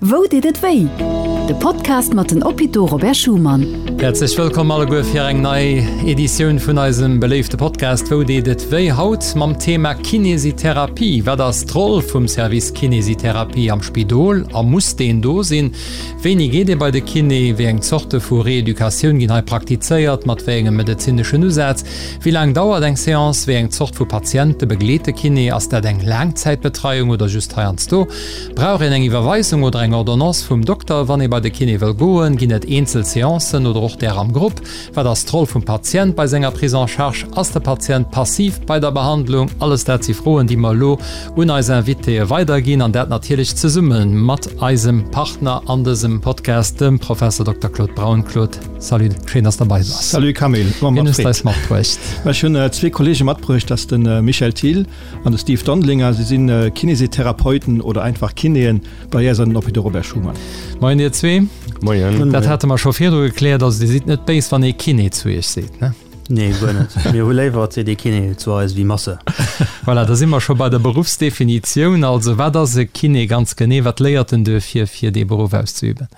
Wou deet et wéi? De Podcast mat den Hôpitaux Robert Schuman. Häerzlech wëllkomm alleguer fir eng nei Editioun vun eisem beléifte Podcast Wou deet et wéi? Haut mam Thema Kinesitherapie. Wat ass d'Roll vum Service Kinesitherapie am Spidol a muss deen do sinn? Wéini geet ee bei de Kiné? Wéi eng Zorte vu Reeducatioun ginn hei praktizéiert? Mat wéi engem medezineschen Usaz? Wéi laang dauert eng Seance? Wéi eng Zort vu Patiente begleet de Kiné? Ass dat eng Laangzäitbetreiung oder just heiansdo? Brauch een eng Iwwerweisung oder eng Ordonnance vum Dokter, wann ee bei de Kiné wëll goen? Ginn et eenzel Seancen oder och där am Grupp? Wat ass d'Roll vum Patient bei senger Prise en charge? Ass de Patient passiv bei der Behandlung? Alles dat si Froen, déi mer elo un eis Invitéë weiderginn, an dat natierlech zesumme mat eisem Partner an dësem Podcast, dem Professor Dokter Claude Braun. Claude, salut, schéin, dass de bei bass. Salut Camille, Wien hues de eis matbruecht? Ech hunn zwee Kollege matbruecht, dat ass de Michel Thill An de Steve Dondelinger, si sinn Kinesitherapeuten oder einfach Kinéen bei äis an den Hôpitaux Robert Schuman. Moien dir zwee. Moien. Dat hate mer scho virdru gekläert, also dir sidd net béis wann ee Kiné zu iech seet, ne? Nee, guer net. Mir hu léiwer et seet ee Kiné zu eis wéi Masseur. Voilà, da si mer scho bei der Beruffsdefinitioun. Also wat ass e Kiné ganz genee? Wat léiert en duerfir, fir dee Beruff auszeüben?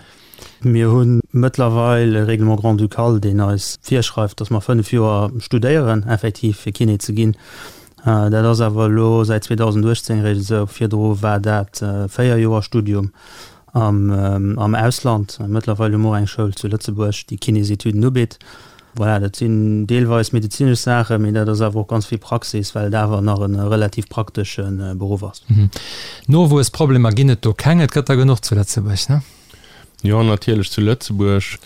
Mir hu mëttlerweil e Règlement grand-ducal, deen eis virschreift, dass mer 5 Joer studéieren, effektiv, fir Kiné ze ginn. Dat ass awer elo säit 2018 eréischt esou. Virdru war dat 4 Joer Studium am Ausland. Mëttlerweil hu mer och eng Schoul zu Lëtzebuerg, déi Kinésetüden ubitt. Voilà, dat sinn deelweis medezinesch Saachen, mee dat ass awer och ganz vill Praxis, well et awer nach e relativ praktesche Beruff ass. Nowuessproblemer ginn et do keng, et gëtt der genuch zu Lëtzebuerg, ne? Jo, natierlech zu Lëtzebuerg.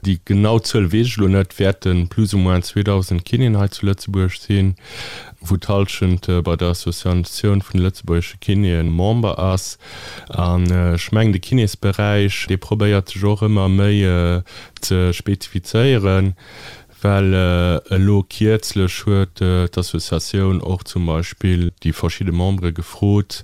Déi genau Zuel weess ech elo net, wäerte plus ou moins 2.000 Kinéen hei zu Lëtzebuerg sinn, wou d'Hallschent bei der Associatioun vun de lëtzebuergesche Kinéen Member ass. An ech mengen, de Kinésberäich, dee probéiert sech och ëmmer méi ze spezifizéieren. Well elo kierzlech huet d'Associatioun och zum Beispill déi verschidde Membere gefrot,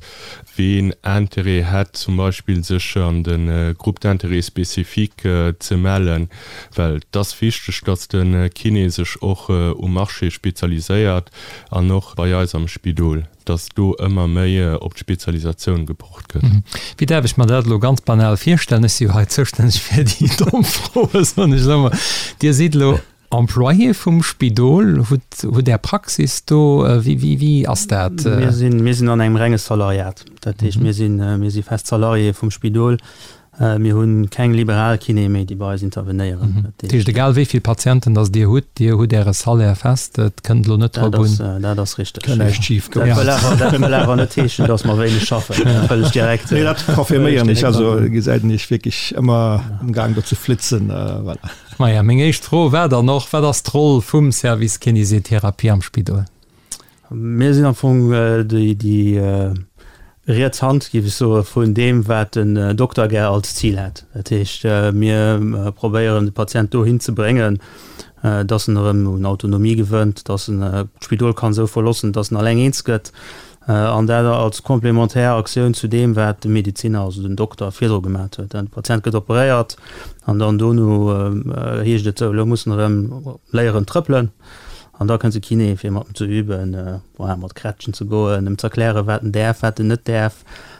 ween Interêt hätt zum Beispill sech an de Groupe d'intérêt spécifique ze mellen. Well et ass wichteg, datt de Kiné sech och um Marché spezialiséiert an och bei eis am Spidol. dass do ëmmer méi op d'Spezialisatioun gepocht gëtt. Wéi däerf ech mer dat elo ganz banal virstellen? Ech si jo hei zoustänneg fir déi domm Froen, soen ech elo emol. Dir sidd elo Employé vum Spidol, hutt, hutt Är Praxis do. Wéi, wéi, wéi ass dat? Mir sinn, mir sinn an engem renge Salariat. Dat heescht, mir sinn, mir si fest Salarié vum Spidol. Mir hu keng liberal Kinéë méi, déi bei eis intervenéieren. Dat heescht, egal wéi vill Patienten datt Dir hutt, Dir hutt Äre Salaire fest, et kënnt elo net drop un. Dat ass richteg. Kënnt näischt schif goen. Dat wëll awer, dat wëll awer net heeschen, datt mer wéineg schaffen. Dat wëll ech direkt. Nee, dat confirméieren ech. Also gesäit een Iech wierklech ëmmer amgaang do ze flitzen. Voilà. Maja, meng éischt Fro war dann och, Wat ass d'Roll vum Service Kinésithérapie am Spidol? Mir sinn am Fong déi riets Hand, géif ech soen, vun deem, wat den Dokter gär als Zil hätt. Dat heescht, mir probéieren, de Patient dohin ze bréngen, dass en erëm un Autonomie gewënnt, dass en d'Spidol kann esou verlossen, dass en alleng eens gëtt, an dat als komplementär Aktioun zu deem, wat de Medeziner, also den Dokter, virdru gemat huet. De Patient gëtt operéiert an dann dono heescht et, sou, elo muss en erëm léieren trëppelen. An da kënnt de Kiné fir mat em ze üben, voilà, mat Krätschen ze goen, em z'erklären, wat en däerf, wat en net däerf.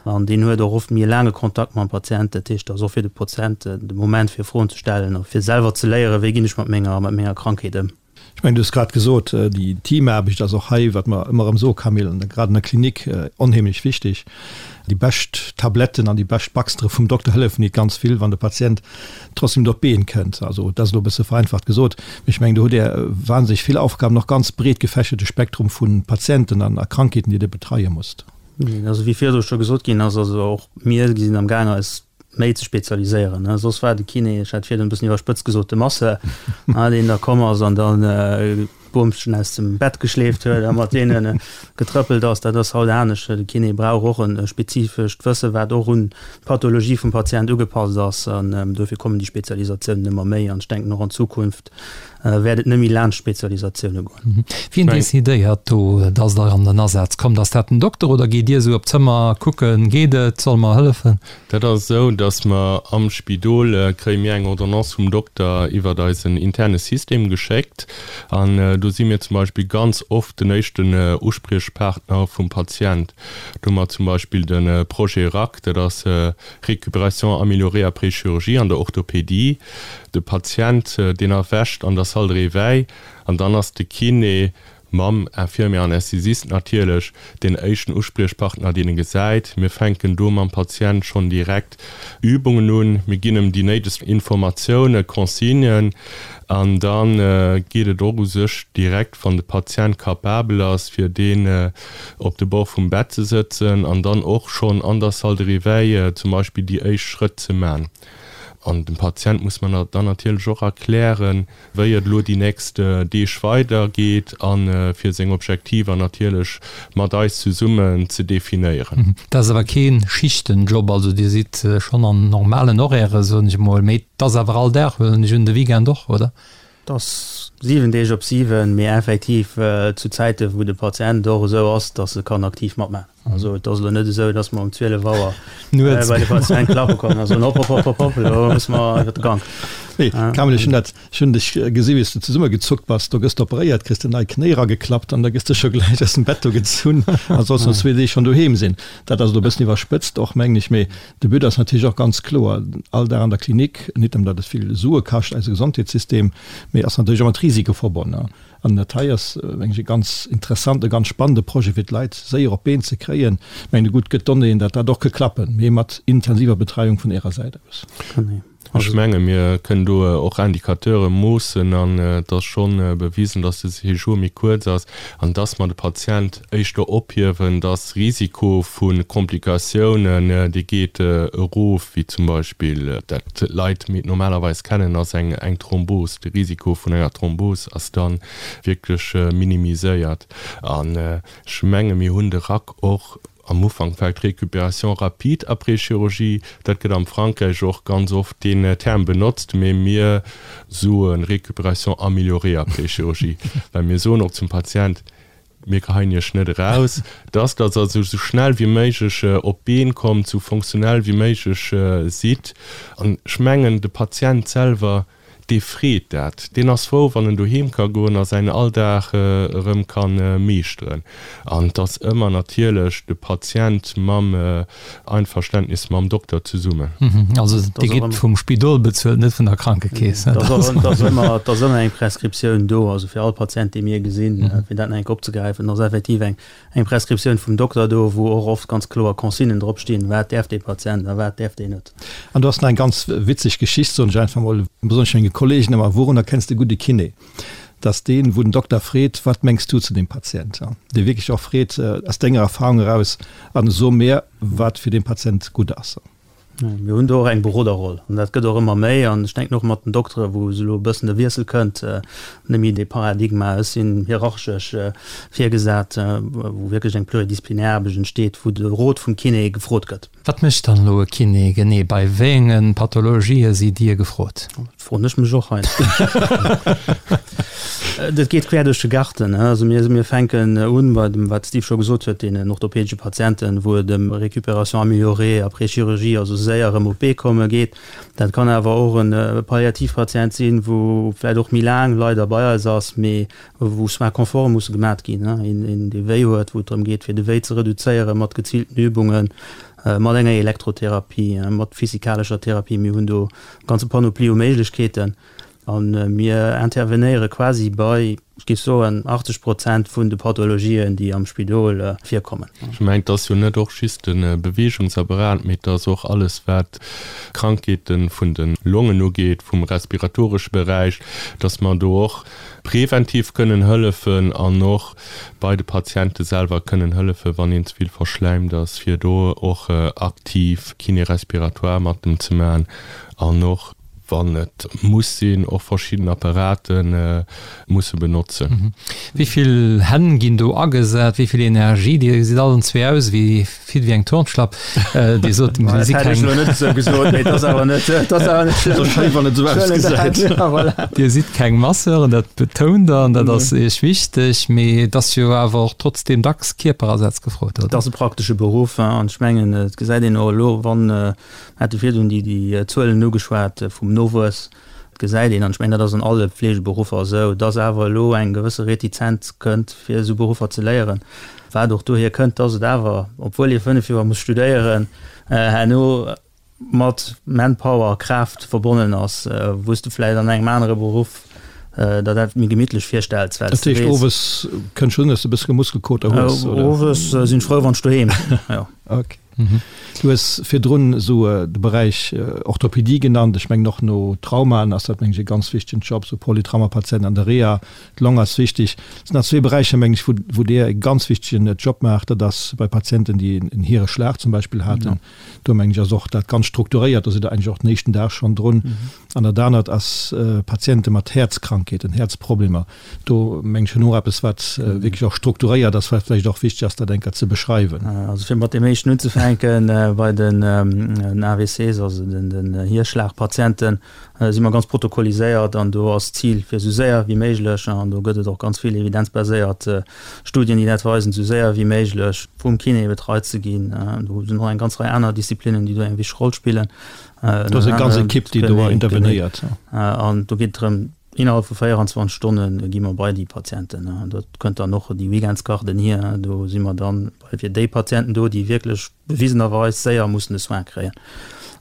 An deen huet och oft méi e laange Kontakt mam Patient. Dat heescht, dat ass och fir de Patient de Moment fir Froen ze stellen a fir selwer ze léieren, wéi ginn ech mat menger, mat menger Krankheet ëm. Ech mengen, du hues grad gesot, déi Teamaarbecht ass och hei, wat mer ëmmer erëm soe Camille, an grad an der Klinik onheemlech wichteg. Déi bescht Tabletten an déi bescht Baxtere vum Dokter hëllefen nit ganz vill, wann de Patient trotzdem net op d'Been kënnt. Also dat ass elo e bësse vereinfacht gesot, mee ech mengen, do hutt Där wahnsinneg vill Aufgaben, och ganz breet gefächerte Spektrum vu Patienten an a Krankheeten, déi Dir betreie musst. Also wéi virdru scho gesot ginn ass, also och mir sinn am gaang eis méi ze spezialiséieren. Soss war de Kiné, ech hat virdrun e bëssen iwwerspëtzt gesot, de Masseur, deen da komm ass an dann Boomschen aus dem Bett geschleeft huet a mat deene getrëppelt ass. Dat ass haut anescht. De Kiné brauch och e spezifescht Wësse wat och un d'Pathologie vum Patient ugepasst ass. An dofir kommen déi Spezialisatiounen ëmmer méi. An ech denken och an Zukunft wäert et net méi laanscht Spezialisatioune goen. Wien decidéiert do, dass Der an den Asaz kommt? Ass dat den Dokter oder geet Dir esou op d'Zëmmer kucken, geet et, solle mer hëllefen? Dat ass esou, dass mer am Spidol kréie mir eng Ordonnance vum Dokter iwwert eisen interne System geschéckt. An do. Do si mir zum Beispill ganz oft den éischten Uspriechpartner vum Patient. Do hu mer zum Beispill de Projet RAC, dat ass Récupération améliorée après chirurgie an der Orthopédie. De Patient, deen erwächt an der Salle de réveil an dann ass de Kiné mam Infirmier Anästhesist natierlech deen éischten Uspriechpartner, deen e gesäit. Mir fänken do mam Patient schonn direkt Übungen un, mir ginn em déi néidegst Informatiounen, Consignen an da geet et och u sech direkt, wann de Patient capabel ass, fir deen op de Bord vum Bett ze sëtzen an dann och schonn an der Salle de réveil zum Beispill déi éischt Schrëtt ze man. An dem Patient muss mer dann natierlech och erklären, wéi et elo déi nächst Deeg weider geet a fir seng Objektiver natierlech mat eis zesummen ze definéieren. Dat ass awer kee Schichtenjob, also Dir sidd schonn an normalen Horairë soen ech emol, mee et ass awer all Dag, huelen ech un, de Weekend och, oder? Et ass 7 Deeg op 7, mee effektiv zu Zäite wou de Patient och esou ass, datt e kann aktiv matmaachen. Also et ass elo net esou, datt mer um 12 Auer bei de Patient klappe kommen a soen, hopp, hopp, hopp, hopp, hopp, elo musse mer iwwer de Gank. Nee, Kamel, ech hunn dat, ech hunn dech gesi wéi s de zesummegezuckt bass. Do gëss de operéiert, kriss de nei Knéi erageklappt an da gëss de scho gläich aus dem Bett do gezunn a solls no zwee Deeg schonn doheem sinn. Dat ass elo e bëssen iwwerspëtzt och, mengen ech, mee de But ass natierlech och ganz kloer, all Dag an der Klinik, nit nëmmen datt et vill Sue kascht, eise Gesondheetssystem, mee ass natierlech och mat Risike verbonn. An dat hei ass, mengen ech, e ganz interessante, ganz spannende Projet, fir d'Leit séier op d'Been ze kréien. Ech mengen, gutt gëtt Donnéeën, datt dat och ke klappen, mee mat intensiver Betreiung vun Ärer Säit aus. Ech menge mir kënnen do och Indicateure moossen an et ass scho bewisen, datt de Séjour méi kuerz ass an datt mer de Patient éischter ophiewen, datt Risiko vu Komplikatiounen, dee geet erof, wéi zum Beispill dat d'Leit méi normalerweis kennen, ass eng eng Thrombos. De Risiko vun enger Thrombos ass da wierklech minimiséiert. An ech menge mir hunn de RAC och am Ufank vläicht Récupération rapide après chirurgie, dat gëtt am Frankräich och ganz oft deen Term benotzt, mee mir soe Récupération améliorée après chirurgie, well mir soen och zum Patient, Mir geheien Iech net eraus, dass Der also esou schnell wéi méiglech op d'Been kommt, esou fonctionnel wéi méiglech sidd. An ech mengen, de Patient selwer, dee freet dat. Deen ass frou, wann en doheem ka goen a säin Alldag erëm ka meeschteren. An et ass ëmmer natierlech de Patient mam Einverständnis mam Dokter zesummen. Also Dir gitt vum Spidol bezuelt, net vun der Krankekeess? Et ass ëmmer eng Prescriptioun do, also fir all Patient, dee mir gesinn, fir dat nach eng Kéier opzegräifen, ass effektiv eng Prescriptioun vum Dokter do, wou och oft ganz kloer Consignen dropstinn, wat däerf dee Patient a wat däerf deen net. An do ass nach eng ganz witzeg Geschicht, soen ech einfach mol, besonnesch menge Kollegen ëmmer, Wourun erkenns de gudde Kiné? Dass deen, wou den Dokter freet, Wat mengs du zu deem Patient? Dee wierklech och freet, aus denger Erfahrung eraus, an so mir, wat fir dee Patient gutt ass. Mir hunn do och eng Beroderroll an dat gëtt och ëmmer méi. An ech denken och mat den Doktere, wou elo e bëssen de Wiessel kënnt, net méi dee Paradigma, ech sinn hierarchesch virgesat, wou wierklech eng pluridisziplinär Aarbecht entsteet, wou de Rot vum Kiné gefrot gëtt. Wat mécht dann elo e Kiné genee? Bei wéienge Pathologië sidd Dir gefrot? Dat froen ech mech och heiansdo. Dat geet quer duerch de Garten. Also mir, mir fänken un bei dem, wat de Steve scho gesot huet, deenen orthopädesche Patienten, wou et ëm Récupération améliorée après chirurgie, also séier erëm op d'Bee komme geet. Dat kann awer och e Palliativpatient sinn, wou vläicht och méi laang leider bei eis ass, mee wou Soins confort musse gemat ginn, een dee wéi huet, wou et drëm geet fir de Wéi ze reduzéieren mat geziilten Übungen, mat enger Elektrotherapie, mat physikalescher Therapie. Mir hunn do e ganze Panoplie u Méiglechkeeten a mir intervenéiere quasi bei, ech géif soen, 80 Prozent vun de Pathologien, déi am Spidol virkommen. Ech mengen, et ass jo net och just de Beweegungsapparat, mee et ass och alles, wat Krankheete vun de Longen ugeet, vum respiratoresche Beräich, dass mer do och preventiv kënnen hëllefen an och bei de Patiente selwer kënnen hëllefen, wann een ze vill verschläimt ass, fir do och aktiv Kiné respiratoire mat em ze maachen an och, wann et muss sinn, och verschidden Apparate musse benotzen. Wéi vill Hänn ginn do agesat? Wéi vill Energie? Dir gesitt allen zwee aus wéi fit wéi eng Turnschlapp. Dir sot, mir si keng. Net esou gesot, mee et ass awer net, et ass awer net schlëmm. Schéin, wann et esou ausgesäit. Dir sidd keng Masseuren, dat betount Der an dat ass Iech wichteg, mee et ass jo awer och trotzdeem dacks Kierperasaz gefrot, oder? Et ass e praktesche Beruff an ech mengen, et gesäit een och elo, wann, mir hate virdrun déi Zuelen ugeschwat vum Nowuess. gesäit een, an ech mengen, dat ass an alle Fleegeberuffer esou, dass awer elo eng gewësse Retizenz kënnt, fir esou Beruffer ze léieren, wat och dohier kënnt, dass et awer, obwuel ee 5 Joer muss studéieren, herno mat Manpower, Kraaft verbonnen ass, wou s de vläicht an engem anere Beruff der dat méi gemittlech virstells, well s de weess. Dat heescht, owes kënnt schonn, dass de e bëssche Muskelkoter hues, oder? Owes sinn ech frou, wann ech doheem sinn, jo. Ok. Du hues virdrun esou de Beräich Orthopedie genannt. Ech mengen och no Traumaen ass dat, mengen ech, e ganz wichtegen Job, esou Polytraumapatienten an der Reha. D'Long ass wichteg. Et sinn nach zwee Beräicher, mengen ech, wou Dir e ganz wichtegen Job maacht. Dat ass bei Patienten, déi en Hireschlag zum Beispill haten. Do mengen ech ass och dat ganz strukturéiert, do sidd Der eigentlech och den éischten Dag schonn drun. An dat anert ass Patiente mat Häerzkrankheeten, Häerzproblemer. Do mengen ech hunn och eppes, wat wierklech och strukturéiert ass, wat vläicht och wichteg ass, dat eng Kéier ze beschreiwen. Also fir mat deem éischten unzefänken, bei den AVCs, also den Hierschlagpatienten, si mer ganz protokolliséiert an do ass d'Zil, fir esou séier wéi méiglech, an do gëtt et och ganz vill evidenzbaséiert Studien, déi dat weisen, esou séier wéi méiglech vum Kiné betreit ze ginn. Do sinn och eng ganz Rei aner Disziplinnen, déi do eng wichteg Roll spillen. Do ass eng ganz Ekipp, déi do intervenéiert. An do geet et drëm, innerhalb vu 24 Stonne gi mer bei déi Patienten. Dat kënnt dann och déi Weekendsgarden hier. Do si mer dann fir déi Patienten do, déi wierklech bewisenerweis séier mussen de Soin kréien.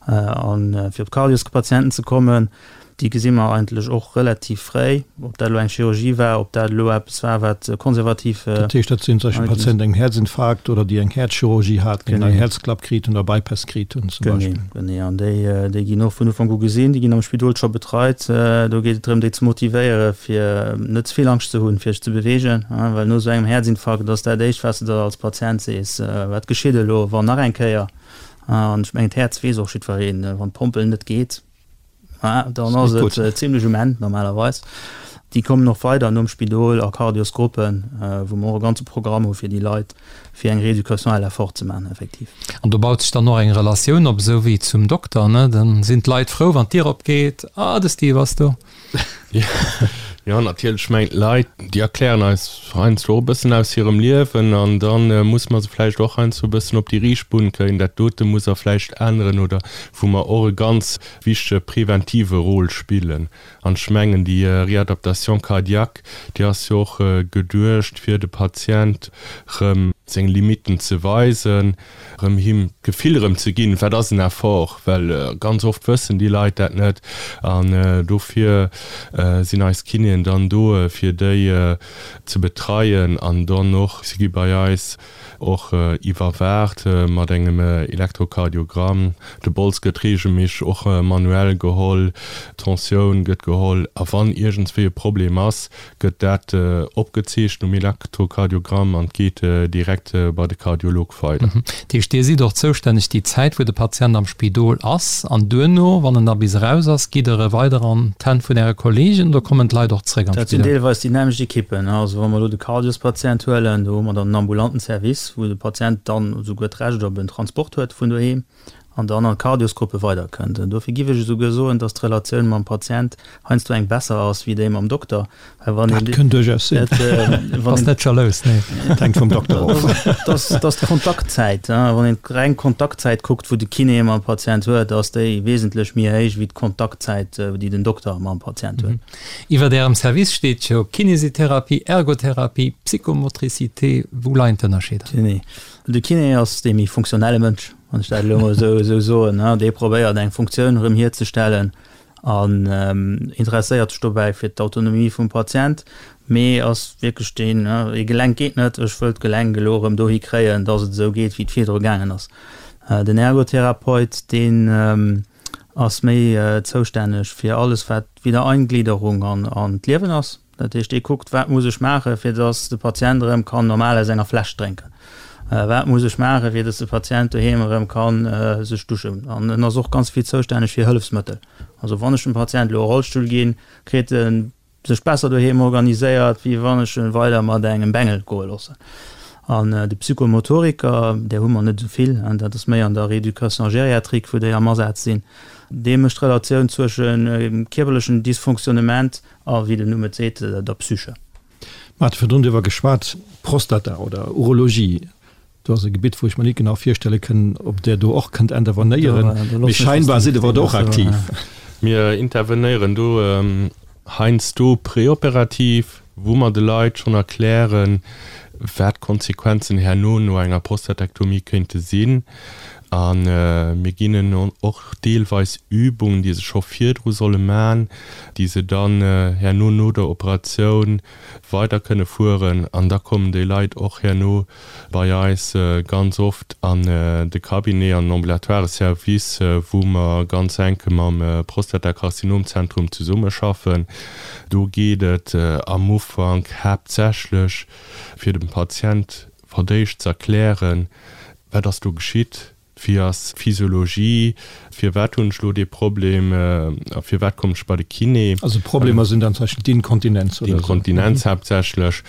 A fir op d'Cardioscpatienten ze kommen, déi gesi mer eigentlech och relativ fréi, ob dat elo eng Chirurgie war, ob dat elo eppes war, wat konservativ. Dat heescht, dat sinn zum Beispill Patienten mat engem Häerzinfarkt oder déi eng Häerzchirurgie haten, déi eng Häerzklapp kritt hunn oder Bypass kritt hunn zum Beispill. Genee, genee. An déi, déi ginn och vun Ufank u gesinn, déi ginn am Spidol scho betreit. Do geet et drëm, déi ze motivéieren, fir net ze vill Angscht ze hunn, fir sech ze beweegen, well no esou engem Häerzinfarkt ass dat éischt, wat s de der als Patient sees, Wat geschitt elo, wann nach eng Kéier? An ech mengen, d'Häerz weess och jiddwereen, wann d'Pompel net geet, dann ass et zimlech um Enn normalerweis. Déi kommen och weider nom Spidol a Cardiosgruppen, wou mer och e ganze Programm hu fir déi Leit, fir eng Rééducation à l'effort ze maachen effektiv. An do baut sech dann och eng Relatioun op, esou wéi zum Dokter, ne? Dann sinn d'Leit frou, wann d'Dier opgeet, Ah, de Steve ass do. Jo, natierlech. Ech mengen, d'Leit, déi erklären eis heiansdo och e bëssen aus hirem Liewen an da musse mer se vläicht och heiansdo e bëssen op déi riicht Bunn kréien. Dat dote muss Der vläicht änneren oder wou mer och e ganz wichtege preventive Rôle spillen. An ech mengen, déi Réadaptation cardiaque, déi ass jo och geduecht, fir de Patient erëm seng Limitten ze weisen, erëm him d'Gefill erëm ze ginn, wat ass en Effort, well ganz oft wëssen déi Leit dat net. An dofir sinn eis Kinéen dann do, fir déi ze betreien an dann och, si gi bei eis och iwwerwaacht mat engem Elektrokardiogramm, de Bols gëtt reegelméisseg och manuell geholl, d'Tensioun gëtt geholl a wann iergendswéi e Problem ass, gëtt dat opgezeechent um Elektrokardiogramm an geet direkt bei de Kardiolog weider. Dat heescht, Dir sidd och zoustänneg déi Zäit, wou de Patient am Spidol ass an duerno, wann en da bis eraus ass, gitt Der e weider an d'Hänn vun Äre Kollegen oder kommen d'Leit och zréck an Dat sinn d'Spidol? deelweis déi nämmlecht Ekippen. Also wa mer elo de Kardiospatient huelen, do hu mer dann en ambulanten Service, wou de Patient dann esouguer d'Recht op en Transport huet vun doheem. an dann an d'Cardiosgruppe weiderkënnt. Dofir giff ech esouguer soen, dass d'Relatioun mam Patient heiansdo eng besser ass wéi déi mam Dokter, well wann een. Dat kënnt duerchaus sinn. Bass net jalous, nee. Dat hänkt vum Dokter of. Dass, dass d'Kontaktzäit, wann een d'reng Kontaktzäit kuckt, wou de Kiné mam Patient huet, ass déi wesentlech méi héich wéi d'Kontaktzäit, déi den Dokter mam Patient huet. Iwwert Ärem Service steet jo Kinésithérapie, Ergothérapie, Psychomotricité. Wou leien d'Ënnerscheeder? Genee. De Kiné ass dee méi funktionelle Mënsch, wann ech dat elo emol esou soen. Dee probéiert eng Funktioun erëm hierzestellen an interesséiert sech dobäi fir d'Autonomie vum Patient, mee ass wierklech deen, ee Gelenk geet net, ech wëll d'Gelenk elo erëm dohi kréien, datt et esou geet, wéi et virdru gaangen ass. Den Ergotherapeut, deen ass méi zoustänneg fir alles, wat Wiedereingliederung an d'Liewen ass. Dat heescht, dee kuckt, wat muss ech maachen, fir datt de Patient erëm kann normal aus enger Fläsch drénken? Wat muss ech maachen, fir datt de Patient doheem erëm ka sech duschen? An en ass och ganz vill zoustänneg fir Hëllefsmëttel. Also wann ech dem Patient elo e Rollstull ginn, kritt e sech besser doheem organiséiert, wéi wann ech e weider mat engem Bengel goe loossen. An de Psychomotoriker, där hu mer net esou vill, dat ass méi an der Rééducation gériatrique, wou déi am Asaz sinn, dee mécht d'Relatioun zwëschen kierperlechen Dysfonctionnement A wéi den Numm et seet, der Psyche. Mer hate virdrun driwwer geschwat, Prostata oder Urologie, do ass e Gebitt, wou ech mer nit genau virstelle kënn, ob Der do och kënnt intervenéieren, mee scheinbar sidd Der do och aktiv. Mir intervenéieren do heiansdo preoperativ, wou mer de Leit schonn erklären, wat d'Konsequenzen herno no enger Prostatektomie kéinte sinn. A mir ginn hinnen och deelweis Übungen, déi se scho virdru solle man, déi se dann herno no der Operatioun weider kënne fueren. An da kommen déi Leit och herno bei eis ganz oft an de Cabinet, an den ambulatoire Service, wou mer ganz enk mam Prostatakarzinomzentrum zesummeschaffen. Do geet et am Ufank haaptsächlech fir dem Patient verdéischt z'erklären, wat ass do geschitt, Wéi ass d'Physiologie? Firwat hunn ech elo dee Problem a firwat kommen ech bei de Kiné? Also Problemer sinn dann zum Beispill d'Inkontinenz oder esou? D'Inkontinenz haaptsächlech.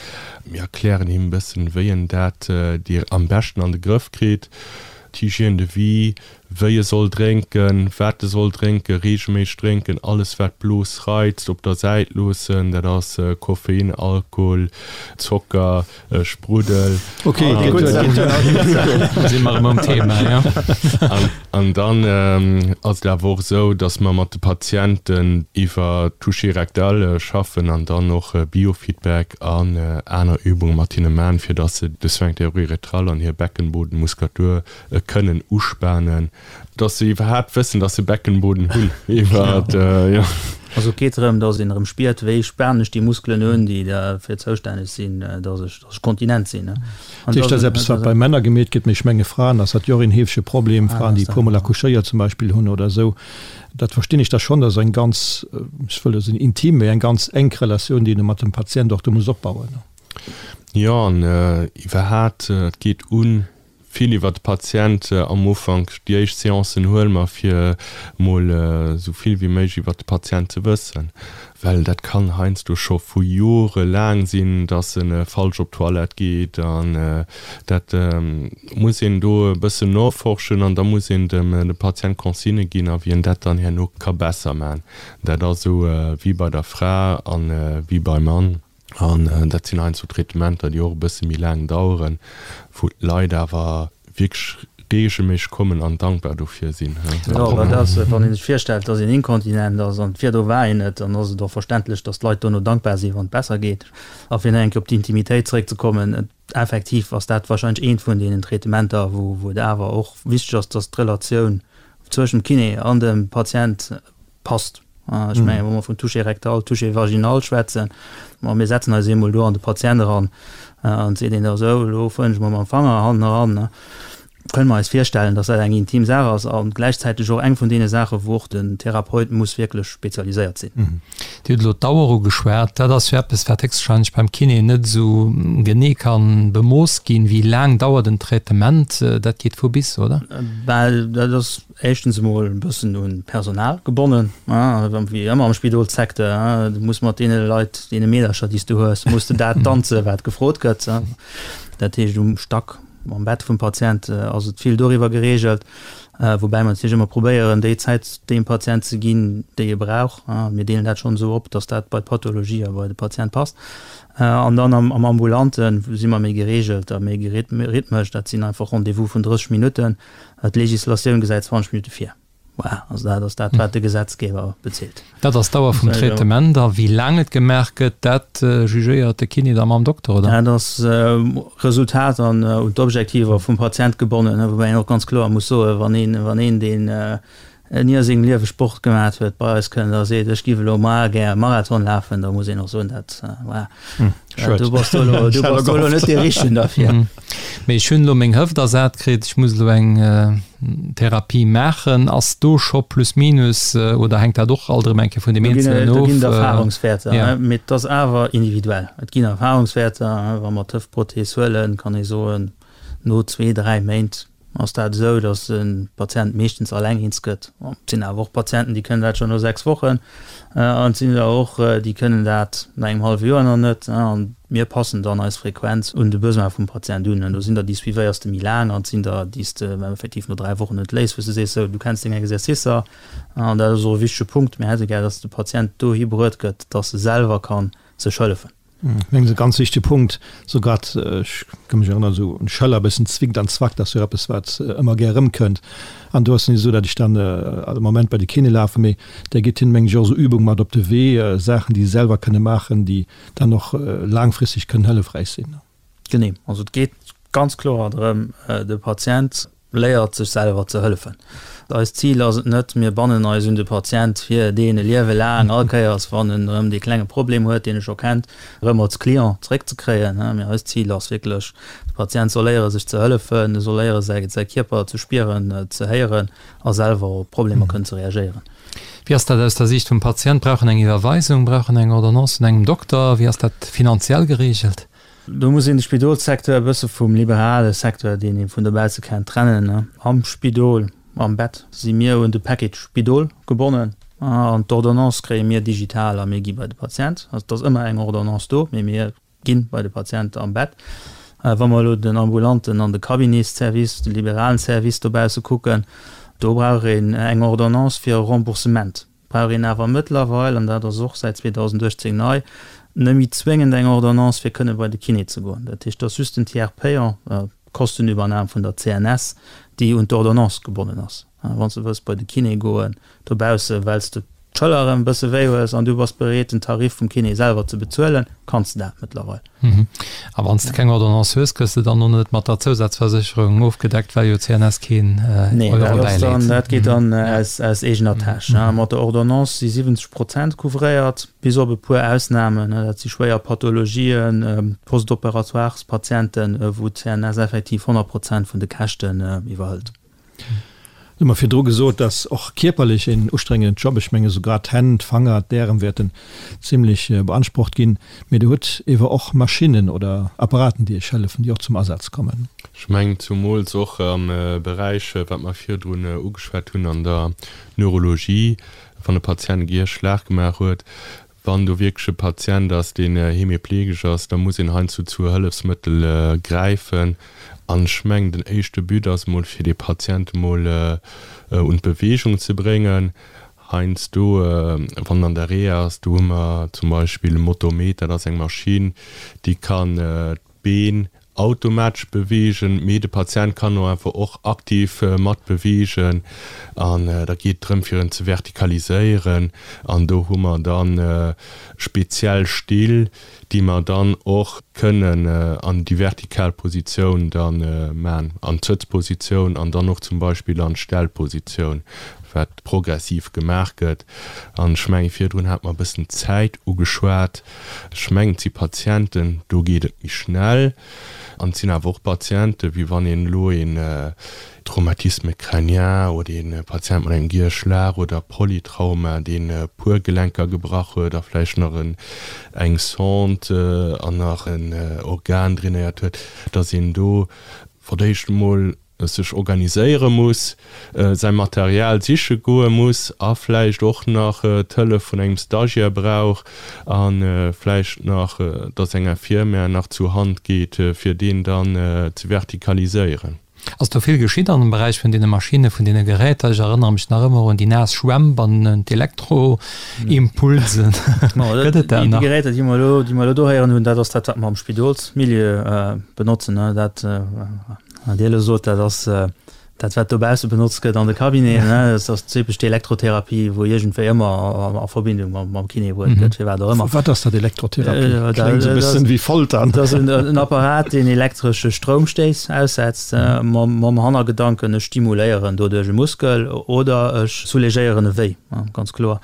Mir erklären him e bëssen, wéi en dat am beschten an de Grëff kritt, d'Hygiène de vie, wéi e soll drénken, wat e soll drénken, reegelméisseg drénken, alles wat d'Blos reizt op der Säit loossen, dat ass Koffein, Alkohol, Zocker, Spruddel. Ok, si mer erëm um Thema, jo. An dann ass et awer och esou, datt mer mat de Patienten iwwer Toucher rectal schaffen an dann och Biofeedback an aner Übunge mat hinne man, fir datt se de Sphincter uréthral an hir Beckenbodenmuskulatur kënnen uspanen. Dass se iwwerhaapt wëssen, dass se Beckenboden hunn. Iwwer, jo. Also et geet drëm, dass een erëm spiert, wéi spanen ech déi Muskelen un, déi derfir zoustänneg sinn, dass ech, dass ech kontinent sinn. Dat heescht, dat ass eppes, wat bei Männer gemeet gëtt, mee ech menge Fraen ass dat jo och een heefege Problem, Fraen, déi e puermol accouchéiert zum Beispill hunn oder esou. Dat verstinn ech da schonn, dat ass eng ganz, ech wëll net soen intim, mee eng ganz enk Relatioun, déi een do mat dem Patient och do muss opbauen. Jo, an iwwerhaapt, et geet un Vill iwwer de Patient am Ufank. Déi éischt Seancen huele mer fir mol esou vill wéi méiglech iwwer de Patient ze wëssen, well dat kann heiansdo scho vu Jore laang sinn, dass e falsch op d'Toilette geet an dat muss een do e bëssen noforschen an da muss een dem Patient Consignë ginn a wéi en dat dann herno ka besser man. Dat ass esou wéi bei der Fra an wéi beim Mann. An dat sinn heiansdo Traitementer, déi och e bësse méi laang daueren, wou d'Leit awer wierklech reegelméisseg kommen an dankbar dofir sinn. Jo, dat ass, wann ee sech virstellt, dass een inkontinent ass an virdru war een et, dann ass et och verständlech, dass d'Leit dono dankbar sinn, wann et besser geet. A fir nach eng Kéier op d'Intimitéit zeréckzekommen, effektiv ass dat wahrscheinlech eent vun deenen Traitementer, wou et awer och wichteg ass, dass d'Relatioun zwëschent dem Kiné an dem Patient Passt. Ech mengen, wa mer vun Toucher rectal, Toucher vaginal schwätzen, ma mir setzen eis eemol do an de Patient eran an et seet een da esou, elo fueren ech mol mam Fanger hannen eran, kënne mer eis virstellen, dass dat eng intim Saach ass a gläichzäiteg och eng vun deene Saachen, wou och den Therapeut muss wierklech spezialiséiert sinn. Dir hutt elo d'Dauer ugeschwat. Dat ass jo eppes, wat héchstwahrscheinlech beim Kiné net esou genee ka bemooss ginn. Wéi laang dauert en Traitement? Dat geet vu bis, oder? Well dat ass éischtens emol e bëssen un d'Personal gebonnen, wéi ëmmer am Spidolssecteur, du muss mat deene Leit, deene Meedercher, déi s du hues, muss de dat danzen, wat gefrot gëtt. Dat heescht, um Stack, am Bett vum Patient ass et vill doriwwer gereegelt, woubäi mer natierlech ëmmer probéieren, déi Zäit deem Patient ze ginn, déi e brauch. Mir deelen dat schonn esou op, datt dat bei d'Pathologie a bei de Patient passt. An dann am Ambulante si mer méi gereegelt a méi rhythmesch, dat sinn einfach Rendez-vous vun 30 Minutten. D'Legislatioun gesäit 20 Minutte vir. Voilà, also dat ass dat, wat de Gesetzgeber bezilt. Dat ass d'Dauer vum Traitement. A wéi laang et gemaach gëtt, dat jugéiert de Kiné da mam Dokter, oder? Dat ass Resultat an un d'Objektiver vum Patient gebonnen, woubäi een och ganz kloer muss soen, wann een, wann een, deen ni a sengem Liewe Sport gemat huet, bei eis kënnt a seet, ech giff elo mar gär e Marathon lafen, da muss een och soen, dat, voilà, du bass do elo, du bass do elo net dee Richtegen derfir. Mee ech hunn elo meng Hëft ersat kritt, ech muss elo eng Therapie maachen. Ass do scho plus minus oder hänkt dat och alt erëm eng Kéier vun deem Eenzelen of? Do ginn et Erfahrungswäerter, mee et ass awer individuell. Et ginn Erfahrungswäerter, wa mer d'Hëftprothees huelen, kann ee soen, no zwee, dräi Méint ass dat esou, datt de Patient meeschtens alleng eens gëtt. Et sinn awer och Patienten, déi kënnen dat schonn no 6 Wochen an et sinn der och, déi kënnen dat no engem hallwe Joer nach net. An mir passen dann eis Frequenz un de Besoin vum Patient un. An do sinn der, déi suivéiers de méi laang an et sinn der, déi s de effektiv no 3 Wochen entléiss, wou s de sees, sou, du kenns deng Exercicer. An dat ass och e wichtege Punkt, Mir hätte gär, datt de Patient dohi bruet gëtt, datt e selwer ka sech hëllefen. Ech mengen, e ganz wichtege Punkt, sou grad, ech ka mech erënneren, esou un Schëller e bëssen zwickt an zwackt, ass jo eppes, wat ëmmer gär erëmkënnt. An do ass et net esou, datt ech dann all Moment bei de Kiné lafen, mee där gitt hinnen, mengen ech, och esou Übung mat op de Wee, Saachen, déi se selwer kënne maachen, déi dann och laangfristeg kënnen hëllefräich sinn. Genee, also et geet ganz kloer drëm, de Patient léiert sech selwer ze hëllefen. Eist Zil ass et net, mir bannen eis un de Patient, fir deen e Liewe laang, all Kéiers wann en erëm dee klenge Problem huet, deen e scho kennt, erëm als Client zeréckzekréien. Mee eist Zil ass wierklech, de Patient soll léiere sech ze hëllefen, e soll léiere säi säi Kierper ze spieren, ze héieren a selwer op Problemer kënnen ze reagéieren. Wéi ass dat aus der Siicht vum Patient? Brauch en eng Iwwerweisung? Brauch en eng Ordonnance vun engem Dokter? Wéi ass dat finanziell gereegelt? Do muss een de Spidolssecteur e bësse vum liberale Secteur, deen ee vun dobausse kennt, trennen. Am Spidol, am Bett, si mir un de Package Spidol gebonnen an d'Ordonnance kréie mir digital a mir gi bei de Patient. Also et ass ëmmer eng Ordonnance do, mee mir gi bei de Patient am Bett. Wa mer elo den ambulanten an de Cabinetsservice, de liberalen Service dobausse kucken, do brauch een eng Ordonnance fir e Remboursement. Brauch een awer mëttlerweil, an dat ass och säit 2018 nei, net méi zwéngend eng Ordonnance fir kënne bei de Kiné ze goen. Dat heescht, et ass just den Tiers payant, d'Kostenübernam vun der CNS, déi un d'Ordonnance gebonnen ass. Wann s de wëlls bei de Kiné goen dobausse well s de d'Schëller erëm e bësse wéi hues an du bass bereet den Tarif vum Kiné selwer ze bezuelen, kanns de dat mëttlerweil. A wann s de keng Ordonnance hues, gëss de dann och net mat der Zousazversécherung ofgedeckt, well jo d'CNS keen Euro bäileet? Nee, dat geet dann aus eegener Täsch. Mat der Ordonnance si 70 Prozent couvréiert, bis op e puer Ausnamen, dat si schwéier Pathologien, Post-opératoires-Patienten, wou d'CNS effektiv 100 Prozent vun de Käschten iwwerhëlt. Hu mer virdru gesot, dass och kierperlech en ustrengenden Job, ech menge souguer d'Hänn, d'Fanger, d'Ärem wäerten zimlech beansprucht ginn, mee Der hutt ewer och Maschinnen oder Apparaten, déi Iech hëllefen, déi och zum Asaz kommen. Ech mengen zumools och am Beräich, wat mer virdrun ugeschwat hunn, an der Neurologie, wann e Patient e Gierschlag gemaach huet, Wann do wierklech e Patient ass, deen hemiplegesch ass, da muss een heiansdo zu Hëllefsmëttel gräifen. An ech mengen, den éischte But ass emol, fir dee Patient emol un d'Beweegung ze bréngen. Heiansdo, wann en an der Reha ass, do hu mer zum Beispill e Motometer, dat ass eng Maschinn, déi kann d'Been automatesch beweegen, mee de Patient kann och einfach och aktiv mat beweegen an da geet et drëm fir en ze vertikaliséieren an do hu mer dann speziell Still, déi mer dann och kënnen an déi vertikal Positioun dann man, an d'Sëtzpositioun an dann och zum Beispill an d'Stellpositioun, wat progressiv gemaach gëtt. An ech mengen, virdrun hat mer e bëssen d'Zäit ugeschwat. Ech mengen, et si Patienten, do geet et méi schnell. An et sinn awer och Patienten, wéi wann een elo een Traumatisme crânien oder ee Patient mat engem Gierschlag oder Polytrauma, deen e puer Gelenker gebrach huet a vläicht nach eng Sonde an nach en Organ drainéiert huet, datt een do fir d'éischt emol sech organiséiere muss, säi Material siche goe muss a vläicht och nach d'Hëllef vun engem Stagiaire brauch a vläicht nach, dass eng Infirmière nach zur Hand geet, fir deen dann ze vertikaliséieren. Ass do vill geschitt an dem Beräich vun deene Maschinne, vun deene Geräter? Ech erënnere mech nach ëmmer un déi naass Schwämp an un d'Elektroimpulsen. Gëtt et dat nach? Déi Geräter, déi mer elo, déi mer elo do héieren hunn, dat ass dat, wat mer am Spidolsmilieu benotzen. Dat Wat Dir elo sot, dat ass dat, wat dobausse benotzt gëtt an de Cabineten. Dat ass typesch d'Elektrotherapie, wou iergendwéi ëmmer a Verbindung mam Kiné bruet gëtt, firwat och ëmmer. Wat ass dat, Elektrotherapie? Kléngt esou e bëssen wéi Folter. Dat ass en Apparat, deen elektresche Stroumstéiss aussetzt, mam Hannergedanken, ech stimuléieren doduerch e Muskel oder ech soulagéieren e Wéi, ganz kloer.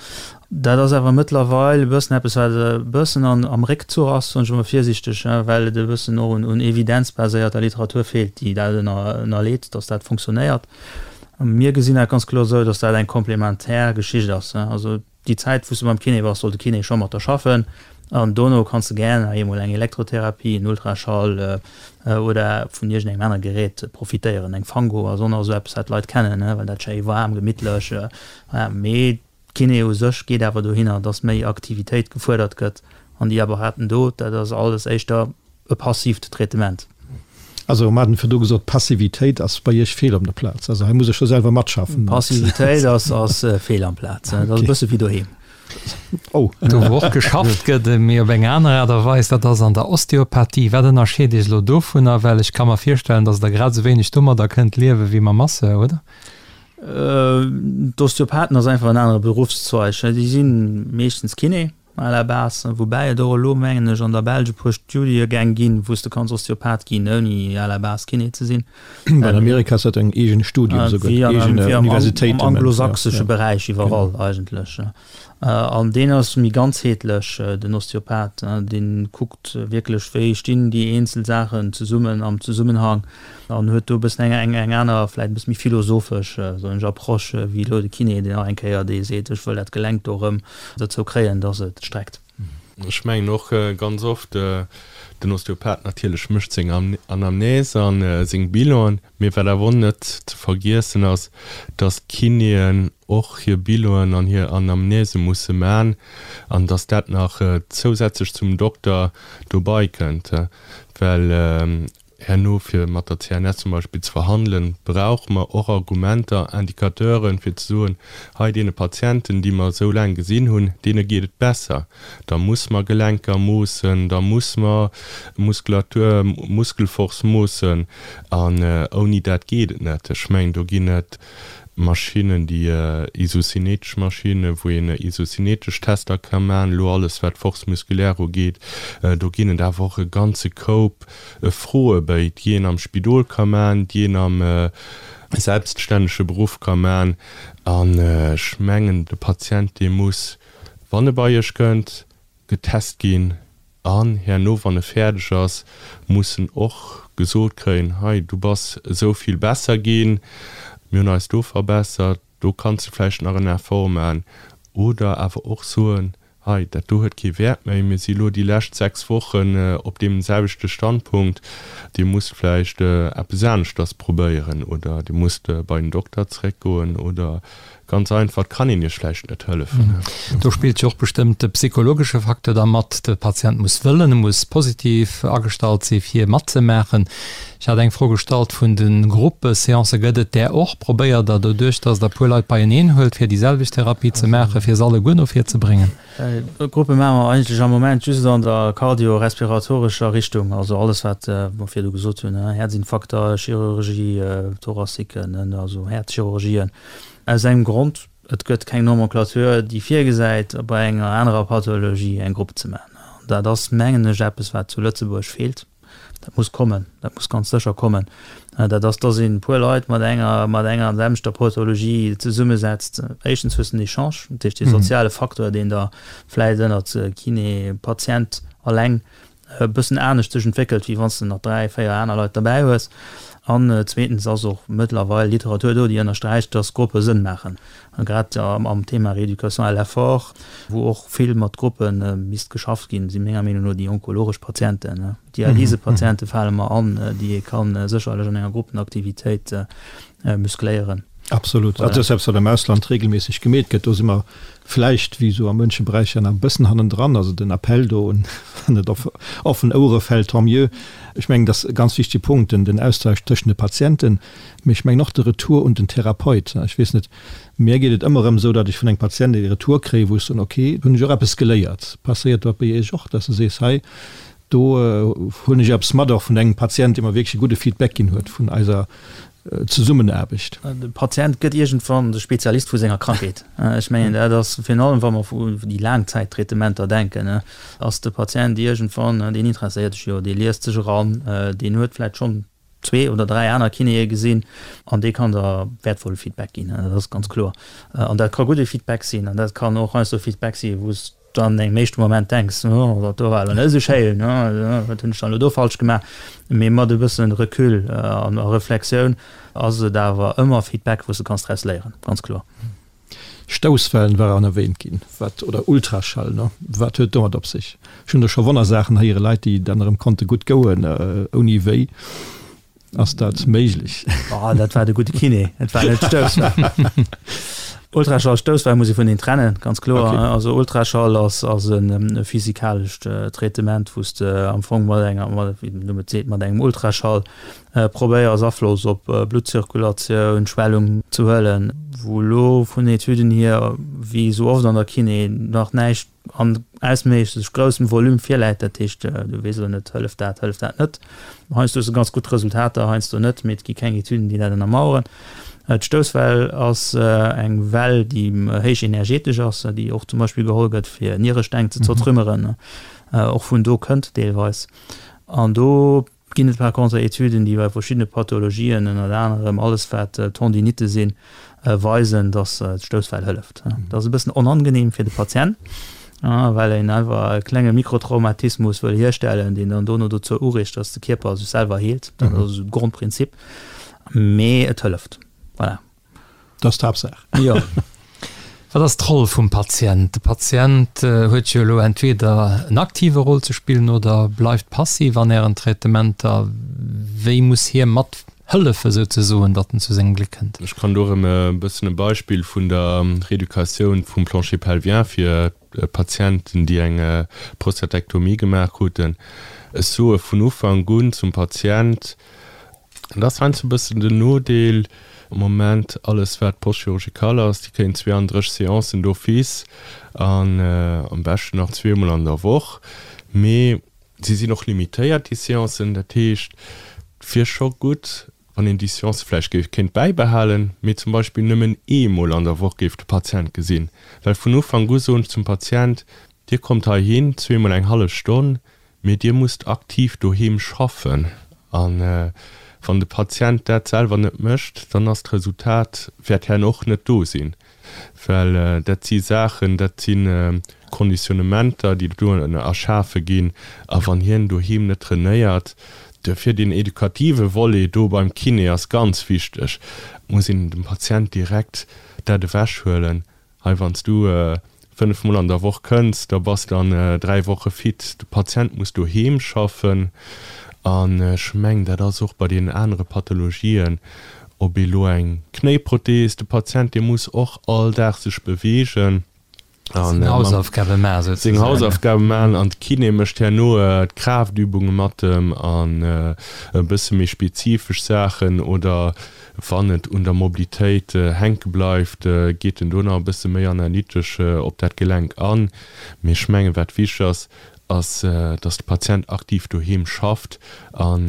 Dat ass awer mëttlerweil e bëssen eppes, wat e bëssen an, am Réckzuch ass, soen ech emol virsichteg, well et e bëssen och un, un evidenzbaséierter Literatur feelt, déi dat ënner, ënnerleet, dass dat funktionéiert. Mir gesinn dat ganz kloer esou, dass dat eng komplementär Geschicht ass. Also déi Zäit, wou s de beim Kiné bass, soll de Kiné scho mat der schaffen an dono kanns de gär nach eemol eng Elektrotherapie, en Ultraschall oder vun iergendengem anere Gerät profitéieren. Eng Fango ass och nach esou eppes, wat d'Leit kennen, well dat schéi waarm, gemittlech, mee D'Kiné u sech geet awer dohinner, dass méi Aktivitéit gefuerdert gëtt an déi Apparaten do, dat ass alles éischter e passiivt Traitement. Also mer haten virdu gesot, Passivitéit ass bei Iech fehl op der Plaz. Also hei muss ech scho selwer matschaffen. Passivitéit ass fehl am Plaz. Dat ass e bësse wéi doheem. Oh. Do wou och geschafft gëtt, mee op eng aner Aart a Weis, dat ass an der Osteopathie. Wat ënnerscheet Iech elo dovunner? Well ech ka mer virstellen, datt Der grad esou wéineg domadder kënnt liewe wéi mam Masseur, oder? D'Osteopathen ass einfach en anere Beruffszweig. Déi si meeschtens Kiné à la base, woubäi et och elo, mengen ech, an der Belsch e puer Studiegäng ginn, wou s de kanns Osteopath ginn, ouni à la base Kiné ze sinn. An Amerika ass dat en eegent Studium esouguer, Wéi an, eegen wéi am, Universitéiten. am anglosächsesche Beräich iwwerall eigentlech. An deen ass méi ganzheetlech, den Osteopath. Dee kuckt wierklech, wéi stinn déi eenzel Saachen zesummen am Zesummenhang an huet do e bëssen eng, eng, eng aner, vläicht e bësse méi philosophesch, soen ech, Approche wéi elo de Kiné, deen nach eng Kéier dee seet, ech wëll dat Gelenk do erëm dozou kréien, dass et streckt. Ech mengen och ganz oft, den Osteopath natierlech mécht seng Anamnese a seng Bilanen, mee wat awer och net ze vergiessen ass, dass d'Kinéen och hir Bilanen an hir Anamnese musse man an dass dat nach zousätzlech zum Dokter dobei kënnt, well Herno fir mat der CNS zum Beispill ze verhandelen, brauche mer och Argumenter, Indicateuren, fir ze soen, hei deene Patienten, déi mer esou laang gesinn hunn, deene geet et besser. Da muss mer Gelenker moossen, da muss mer Muskulatur, Muskelforce moossen an ouni dat geet et net. Ech mengen, do ginn et Maschinnen, déi isocinetesch Maschinnen, wou een isocinetesch Tester ka maachen, elo alles wat d'Force musculaire ugeet. Do ginn et awer och e ganze Koup Froebéi, déi een am Spidol ka man, déi een am selbststännege Beruff ka man. An ech mengen, de Patient, dee muss, wann e bei Iech kënnt, getest ginn an herno, wann e fäerdeg ass, muss en och gesot kréien, Hei, du bass esou vill besser ginn, mir hunn eis do verbessert, do kanns de vläicht nach en Effort man. Oder awer och soen, Hei, dat do huet kee Wäert méi, mir si elo déi lescht 6 Wochen op deem selwechte Standpunkt, Dir musst vläicht eppes aneschters probéieren oder Dir musst bei den Dokter zréckgoen oder ganz einfach, et kann een Iech vläicht net hëllefen. Do spillt jo och bestëmmt de psychologesche Facteur da mat. De Patient muss wëllen, e muss positiv agestallt si fir matzemaachen. Ech hat eng Fro gestallt vun de Gruppeseancen. Gëtt et där och? Probéiert Der doduerch, datt Der e puer Leit beieneen huelt, fir déi selwecht Therapie ze maachen, fir se alleguer no vir ze bréngen? Gruppe maache mer eigentlech am Moment just an der kardiorespiratorescher Richtung, also alles wat mer virdu gesot hunn, Häerzinfarkter, Chirurgie thoraciquen, also Häerzchirurgien. Aus engem Grond, Et gëtt keng Nomenclature, déi virgesäit, bei enger anerer Pathologie eng Grupp ze maachen. An dat ass, mengen ech, eppes wat zu Lëtzebuerg feelt. Dat muss kommen, dat muss ganz sécher kommen. Dat ass, dass een e puer Leit mat enger, mat enger an selwechter Pathologie zesummesetzt. Éischtens hues de en Echange, dat heescht dee soziale Faktor, deen da vläicht ënnert Kiné, Patient alleng e bëssen anescht sech entwéckelt, wéi wann s de nach 3, 4 aner Leit derbäi hues. An zweetens ass och mëttlerweil Literatur do, déi ënnersträicht, dass Gruppe Sënn maachen. Grad am Thema Rééducation à l'effort, wou och vill mat Gruppe misst geschafft ginn, si menger Meenung no déi onkologesch Patienten. Dialysepatiente fale mer an, déi ee ka sécherlech an enger Gruppenaktivitéit muscléieren. Absolut. Dat ass eppes, wat am Ausland regelméisseg gemeet gëtt. Do si mer vläicht, wéi esou a munche Beräicher, nach e bëssen hannendran. Also den Appell do un, wann et op offen Ouere fält, tant mieux. Ech mengen, dat ass e ganz wichtege Punkt, den Austausch tëschent de Patienten, mee ech mengen och de Retour un den Therapeut. Ech weess net, mär geet et ëmmer erëm esou, datt ech vun engem Patient e Retour kréien, wou ech soen, ok, do hunn ech och eppes geléiert. Passéiert dat bei Iech och, datt s de sees, hei, do hunn ech eppes mat och vun engem Patient, dee mer wierklech e gudde Feedback ginn huet vun eiser Zesummenaarbecht. De Patient gëtt iergendwann de Spezialist vu senger Krankheet. Ech mengen, dat ass virun allem, wa mer u déi Laangzäittraitementer denken, ass de Patient iergendwann, deen interesséiert sech jo, dee liest sech eran, deen huet vläicht schonn zwee oder dräi aner Kinéë gesinn an dee kann der wäertvolle Feedback ginn, dat ass ganz kloer. An dat ka gudde Feedback sinn an dat kann och heiansdo Feedback sinn, wou s du an engem éischte Moment denks, oh, dat do war elo net esou schéin, wat hunn ech dann elo do falsch gemaach? Mee mat e bësse Recul an Reflexioun ass et awer ëmmer Feedback, wou s du kanns draus léieren, ganz kloer. Stousswellen waren erwähnt ginn, wat, oder Ultraschall, ne? Wat huet domat op sech? Ech hunn do scho Wonnersaachen héieren, Leit, déi dann erëm konnte gutt gouen, ouni wéi. Ass dat méiglech? Oh, dat war de gudde Kiné, et war net d'Stousswell. Ultraschall, Stousswell muss ee vun een trennen, ganz kloer. Okay. Also Ultraschall ass, ass e physikalescht Traitement, wou s de am Fong mat enger, mat, wéi den Numm et seet, mat engem Ultraschall probéiers Afloss op Bluttzirkulatioun, Schwellung ze huelen, wou elo vun Etüden hier, wéi esou oft an der Kiné, nach näischt an ausméiglech groussem Volume virläit, dat heescht, du weess elo net, hëlleft dat, hëlleft dat net. Heiansdo hues de ganz gutt Resultater, heiansdo net, mee et gi keng Etüden, déi dat ënnermaueren. D'Stousswell ass eng Well, déi héich energetesch ass, déi och zum Beispill geholl gëtt, fir Nieresteng ze zertrümmeren, och vun do kënnt deelweis. An do ginn et par contre Etüden, déi bei verschiddene Pathologien, ënnert anerem alles wat Tendinitte sinn, weisen, datt d'Stousswell hëlleft. Dat ass e bëssen onangenehm fir de Patient, well een einfach e klenge Mikrotraumatismus wëll hierstellen, deen dann dono dozou ureegt, datt de Kierper sech selwer heelt. Dat ass esou de Grondprinzip. Mee et hëlleft. Voilà. Dat ass d'Haaptsaach. Jo. Wat ass d'Roll vum Patient? De Patient huet jo elo entweder en aktive Roll ze spillen oder bleift passiv an Ären Traitementer. Wéi muss hie mat hëllefe souzesoen, datt en zu sengem Gléck kënnt? Ech kann do erëm e bëssen e Beispill vun der Reeducatioun vum Plancher pelvien fir Patienten, déi eng Prostatektomie gemaach kruten. Ech soe vun Ufank un zum Patient, Dat ass heiansdo e bëssen den Nodeel am Moment, alles wat post-chirurgical ass, déi kréien 32 Séancen d'office an am beschten nach zweemol an der Woch. Mee si sinn och limitéiert, déi Séancen. Dat heescht, et wier scho gutt, wann een déi Seancë vläicht géif kéint bäibehalen, mee zum Beispill nëmmen eemol an der Woch géif de Patient gesinn. Well vun Ufank u soen ech zum Patient, Dir kommt heihin, zweemol eng hallef Stonn, Mee Dir musst aktiv doheem schaffen. A wann de Patient dat selwer net mécht, dann ass d'Resultat, wäert herno och net do sinn. Well dat si Saachen, dat si Conditionnementer, déi do erschafe ginn. A wann hien doheem net trainéiert, duerfir deen edukative Volet do beim Kiné ass ganz wichteg, muss een dem Patient direkt dat ewechhuelen, Hei wann s du 5 mol an der Woch kënns, da bass de an 3 Woche fit. De Patient muss doheem schaffen an ech mengen dat ass och bei deenen anere Pathologien, ob ee lo eng Knéiprothees, de Patient dee muss och all Dag sech beweegen an seng Hausaufgabe maachen souzesoen. Seng Hausaufgabe maachen an de Kiné mécht herno d'Kraaftübunge mat em an e bësse méi spezifesch Saachen oder Wann et un der Mobilitéit hänke bleift, geet en do nach e bësse méi analytesch op dat Gelenk an. Mee ech mengen, wat wichteg ass, ass, dass de Patient aktiv doheem schafft an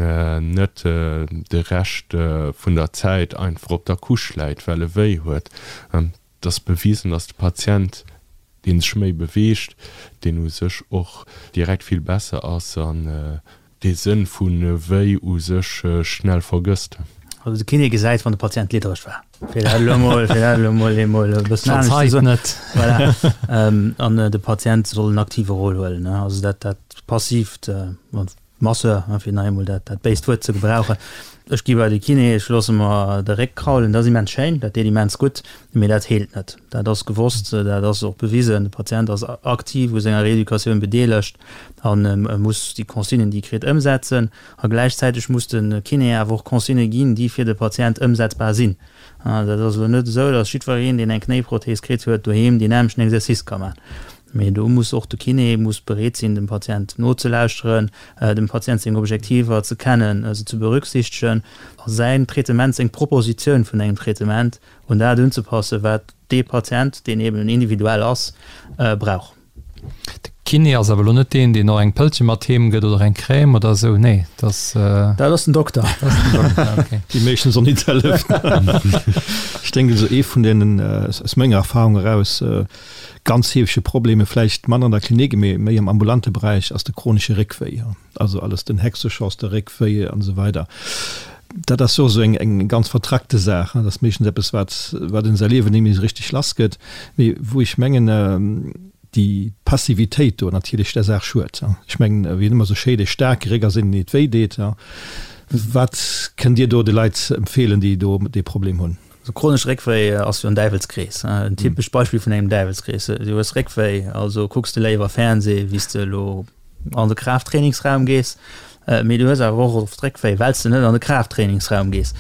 net de Rescht vun der Zäit einfach op der Couche läit, well e wéi huet. Et ass bewisen, dass de Patient, dee sech méi beweegt, deen u sech och direkt vill besser ass an dee Sënn vu wéi u sech schnell vergësst. Also de Kiné gesäit, wann de Patient liddereg war, fir dat elo mol, fir dat elo mol eemol e bëssen anescht ze soen. Verzeit net. Voilà. An de Patient soll en aktive Rôle huelen, ne. Also dat, dat passiivt, Masseur, fir nach eemol dat, dat béist Wuert ze gebrauchen. Ech gi bei de Kiné, ech loosse mer de Réck kraulen, dat ass immens schéin, dat deet immens gutt, mee dat heelt net. Dat ass gewosst, dat ass och bewisen. De Patient ass aktiv u senger Reeducatioun bedeelegt an e muss déi Consignen, déi e kritt, ëmsetzen. A gläichzäiteg muss de Kiné awer och Consignë ginn, déi fir de Patient ëmsetzbar sinn. Dat ass elo net esou, datt jiddwereen, deen eng Knéiprothees kritt huet, doheem deen nämmlechten Exercice ka maachen. Mee do muss och de Kiné muss bereet sinn, dem Patient nozelauschteren, dem Patient seng Objektiver ze kennen, se ze berücksichtegen a säin Traitement, seng Propositioun vun engem Traitement un dat unzepassen, wat dee Patient, deen eben individuell ass, brauch. De Kiné ass awer elo net deen, deen och eng Pëllche mat heem gëtt oder eng Crème oder esou, nee, dat ass. Dat ass den Dokter. Dat ass den Dokter, okay. Déi meeschtens och nit hëlleft. Ech denken, esou ee vun deenen, aus menger Erfahrung eraus, Ganz heefege Probleme, vläicht manner an der Klinik, mee méi am ambulante Beräich, ass de chronesche Réckwéi, also alles den Hexeschoss, de Réckwéi an esou weider. Dat ass jo esou eng eng ganz vertrackte Saach, dat ass meeschtens eppes, wat wat een säi Liewen net méi esou richteg lass gëtt, mee wou ech mengen, déi Passivitéit do natierlech der Saach schued. Ech mengen, wéi et ëmmer esou schéi, dee staarke Réck ass een, deen et wéi deet. Wat kënnt Dir do de Leit empfeelen, déi do dee Problem hunn? Also chronesch Réckwéi ass jo en Däiwelskrees, en typescht Beispill vun engem Däiwelskrees. Du hues Réckwéi, also kucks de léiwer Fernsee, wéi s de elo an de Kraafttrainingsraum gees. Mee du hues awer och oft Réckwéi, well s de net an de Kraafttrainingsraum gees.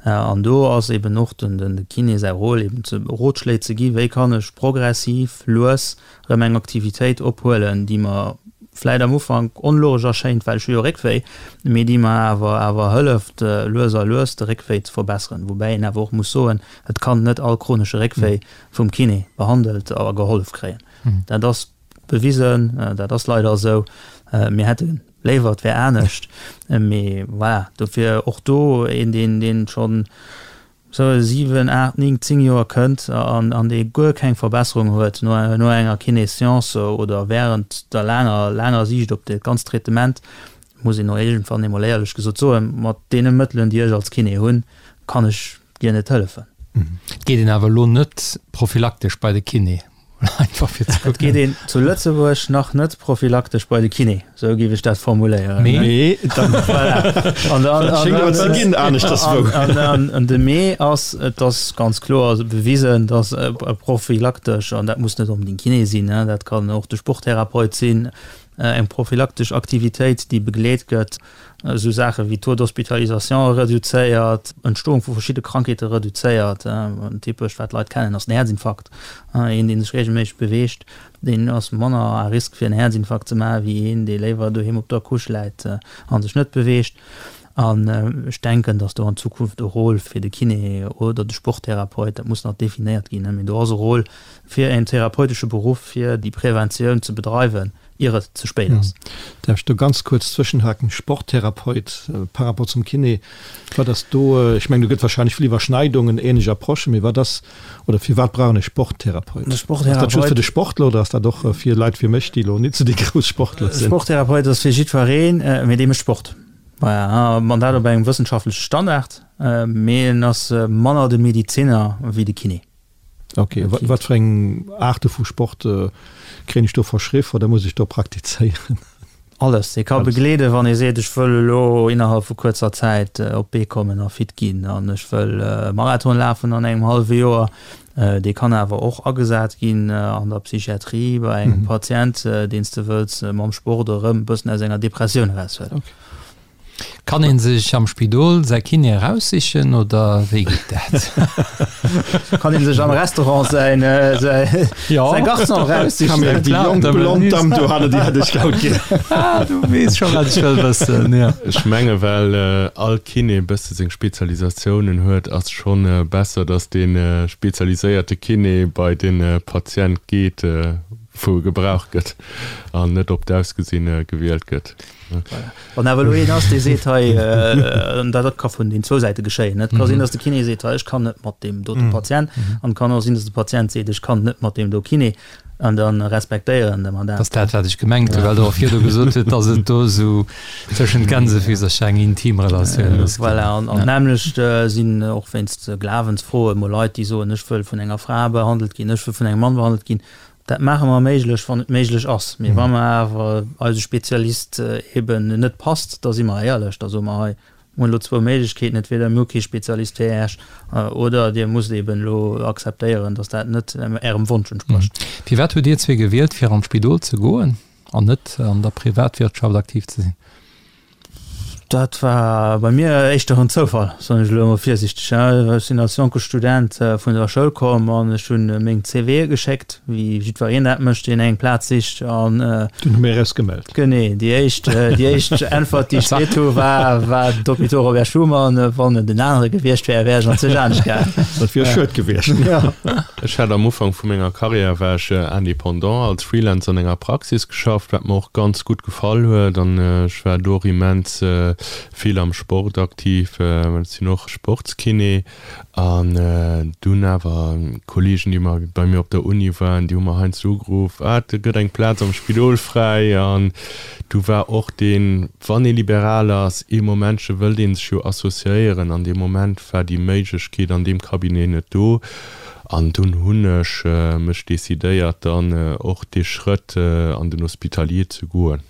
An do ass eben och den de Kiné säi Rôle eben ze Rotschléi ze gi wéi kann ech progressiv, lues erëm eng Aktivitéit ophuelen, déi mer vläit am Ufank onlogesch erschéint, well ech hu jo Réckwéi, mee déi mer awer awer hëlleft lues a lues de Réckwéi ze verbesseren. Woubäi een awer och muss soen, et kann net all chronesche Réckwéi vum Kiné behandelt a gehollef kréien. Dat ass bewisen, dat ass leider esou. Mir hätte léiwer et wär anescht, mee voilà, dofir och do een, deen, deen schonn esou 7, 8, 9, 10 Joer kënnt an, an dee guer keng Verbesserung huet no, no enger Kiné-Séance oder während der laanger, laanger Siicht op dat ganzt Traitement, muss een och iergendwann emol éierlech gesot soen, mat deene Mëttelen, déi ech als Kiné hunn, kann ech dir net hëllefen. Et geet een awer elo net prophylaktesch bei de Kiné, einfach fir ze kucken. Et geet een zu Lëtzebuerg nach net prophylaktesch bei de Kiné, esou géif ech dat formuléieren. Mee dann, voilà. An dann, an dann, ze ginn aneschterswou. An, an, an de Mee ass, et ass ganz kloer bewisen, dass prophylaktesch, an dat muss net onbedéngt Kiné sinn, dat kann och de Sporttherapeut sinn, eng prophylaktesch Aktivitéit, déi begleet gëtt, esou Saache wéi Taux d'hospitalisation reduzéiert, Entstoung vu verschidde Krankheete reduzéiert. En typescht, wat d'Leit kennen, ass den Häerzinfarkt. Een, dee sech reegelméisseg beweegt, deen ass manner à risque fir en Häerzinfarkt ze maachen, wéi een, dee léiwer doheem op der Couche läit a sech net beweegt. An ech denken, datt do an Zukunft e Rôle fir de Kiné oder de Sporttherapeut, dat muss nach definéiert ginn, mee do ass e Rôle fir en therapeutesche Beruff, fir déi Preventioun ze bedreiwen, ier et ze spéit ass. Däerf ech do ganz kuerz zwëschenhaken? Sporttherapeut par rapport zum Kiné, wat ass do, ech mengen do gëtt wahrscheinlech vill Iwwerschneidungen, ähnlech Approchen, mee wat ass, oder firwat brauch een e Sporttherapeut? De Sporttherapeut. Ass dat just fir de Sportler oder ass dat och fir Leit wéi mech, déi elo nit sou déi grouss Sportler sinn? Sporttherapeut ass fir jiddwereen, mee dee mécht Sport. Voilà, an dat op engem wëssenschaftleche Standard, mee en ass manner de Mediziner wéi de Kiné. Ok, wat fir eng Aarte vu Sport kréien ech do verschriff oder muss ech do praktizéieren? Alles. Ee ka begleeden, wann ee seet, ech wëll elo innerhalb vu kuerzer Zäit op d'Bee kommen a fit ginn an ech wëll e Marathon lafen an engem hallwe Joer. Dee kann awer och agesat ginn an der Psychiatrie bei engem Patient, deen s de wëlls mam Sport erëm e bëssen aus enger Depressioun eraushuelen. Kann een sech am Spidol säi Kiné eraussichen oder wéi geet dat? Kann een sech am Restaurant säin säi Garçon eraussichen? Camille, déi jonk blond Damm do hanne, déi hätt ech haut gär. Ah, du weess scho wat ech wëll wëssen, jo. Ech menge well all Kiné e bësse seng Spezialisatiounen huet, ass schonn besser, datt dee spezialiséierte Kiné bei de Patient geet, wou e gebraucht gëtt an net op d'Ausgesinn gewielt gëtt. Wann awer elo een ass, dee seet hei, an dat ka vun den zwou Säite geschéien, et ka sinn, datt de Kiné seet, hei ech kann net mat deem dote Patient, an et kann och sinn, datt de Patient seet, ech kann net mat deem do Kiné, an da respektéieren de mer dat. Dat ass dat, wat ech gemengt hunn, well Der och virdu gesot hutt, datt et do esou tëschent Gänsefüsercher eng intim Relatioun muss ginn. Voilà, an d'nämmlecht sinn och wéinst Glawensfroe mol Leit, déi soen, ech wëll vun enger Fra behandelt ginn, ech wëll vun engem Mann behandelt ginn. Dat maache mer méiglech, wann et méiglech ass. Mee wa mer awer eise Spezialist eben net passt, da si mer éierlech, da soe mer, hei, mir hunn elo zwou Méiglechkeeten, entweder mir hu kee Spezialist fir Äech oder Dir musst eben elo akzeptéieren, datt dat net Ärem Wonsch entsprécht. Firwat hutt Dir zwee gewielt, fir an d'Spidol ze goen an net an der Privatwirtschaft aktiv ze sinn? Dat war bei mir éischter en Zoufall, soen ech elo emol virsichteg. Ech sinn als jonke Student vun der Schoul komm an ech hunn meng CVe geschéckt, wéi jiddwereen dat mécht, deen eng Plaz sicht. An Dunn hu mir eis gemellt. Genee, déi éischt, déi éischt Äntwert, déi ech kritt hu war, war d'Hôpitaux Robert Schuman. Wann et en anere gewiescht wär, wär ech an zeg anescht gaangen. Dat wier schued gewiescht. Jo. Ech hat am Ufank vu menger Karriär war ech Indépendant als Freelancer an enger Praxis geschafft, wat mer och ganz gutt gefall huet an ech war do och immens vill am Sport aktiv, well ech sinn och Sportskiné an dunn awer Kollegen déi mer bei mir op der Uni waren, déi hu mer heiansdo ugeruff, ah et gëtt eng Plaz am Spidol fräi an du war och deen, wann ee liberal ass, ee Momentche wëllt ee sech jo associéieren an dee Moment war déi Méiglechkeet an deem Cabinet net do. An dunn hunn ech mech decidéiert, dann och dee Schrëtt an den Hospitalier ze goen.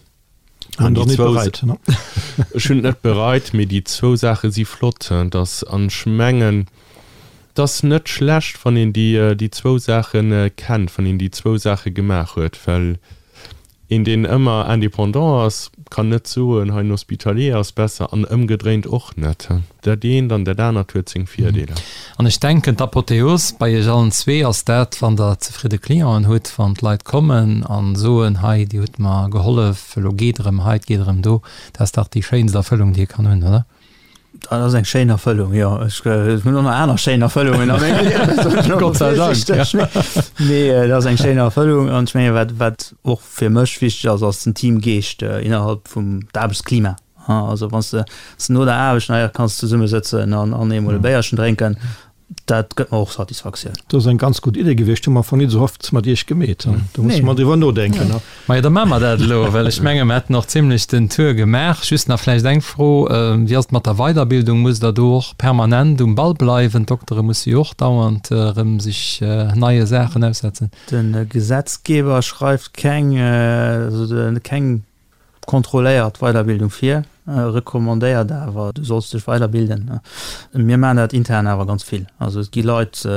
An déi zwou, ech hunn et net bereit, mee déi zwou Saache si flott, dass, an ech mengen, et ass net schlecht, wann een déi, déi zwou Saache kennt, wann een déi zwou Saache gemaach huet, well. Een deen ëmmer indépendant ass, kann net soen, hei en Hospitalier ass besser an ëmgedréint och net. Dat eent an dat anert huet seng Virdeeler. An ech denken, d'Apotheos bei Iech allen zwee ass dat, wann Der zefridde Clienten hutt, wann d'Leit kommen a soen, hei Dir hutt mer gehollef, elo geet erëm hei, et geet erëm do. Dat ass dach déi schéinst Erfëllung, déi ee kann hunn, oder? Dat ass eng schéin Erfëllung, jo. Ech hunn och nach aner schéin Erfëllungen a mengem Liewen. Gott sei Dank, ja. Mee dat ass eng schéin Erfëllung an ech menge wat, wat och fir mech wichteg ass, ass den Teamgeescht innerhalb vum d'Aarbechtsklima. Also wann s de no der Aarbecht nach kanns zesummesëtzen an eemol e Béierchen drénken, Dat gëtt mer och Satisfaktioun. Dat ass eng ganz gutt Idee gewiescht. Hu mer am Fong nit esou oft mat Iech gemeet. Do musse mer driwwer nodenken. Majo, da maache mer dat elo, well ech menge mer hätten och zimlech den Tour gemaach. Just nach vläicht eng Fro, Wéi ass et mat der Weiderbildung? Musst Der do och permanent um Ball bleiwen? D'Doktere musse jo och dauernd erëm sech neie Saachen aussetzen. De Gesetzgeber schreift keng, also keng Kontrolléiert Weiderbildung vir, recommandéiert awer, du solls dech weiderbilden. Mir maachen dat intern awer ganz vill. Also et gi Leit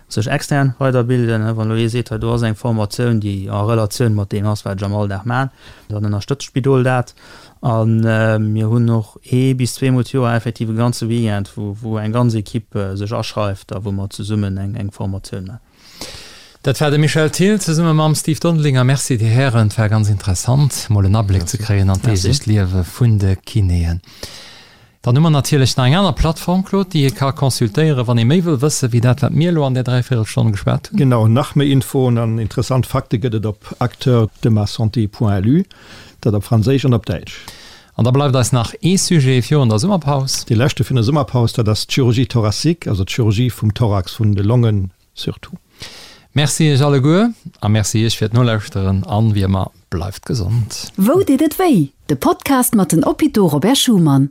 sech extern weiderbilden. Wann elo ee seet, hei do ass eng Formatioun, déi a Relatioun mat deem ass, wat ech am Alldag maachen, dann ënnerstëtzt d'Spidol dat. A mir hunn och ee bis zweemol d'Joer effektiv e ganze Weekend, wou eng ganz Equipe sech aschreift a wou mer zesummen eng Formatioun maachen. Dat war de Michel Thill zesumme mam Steve Dondelinger. Merci Dir Hären, et war ganz interessant mol en Abléck ze kréien an d'deeglecht Liewe vun de Kinéen. Dann hu mer natierlech nach eng aner Plattform, Claude, déi ee ka consultéieren, wann ee méi wëll wësse wéi dat, wat mir elo an där Dräivéierelstonn geschwat hunn. Genau, nach méi Infoen an interessant Fakte gëtt et op acteursdemasanté.lu, dat op Franséisch an op Däitsch. An da bleift eis nach ee Sujet virun der Summerpaus. Dee leschte virun der Summerpaus, dat ass d'Chirurgie thoracique, also d'Chirurgie vum Thorax, vun de Longen surtout. Merci iech alleguer a merci iech fir d'Nolauschteren an wéi ëmmer, bleift gesond. Wou deet et wéi? De Podcast mat den Hôpitaux Robert Schuman.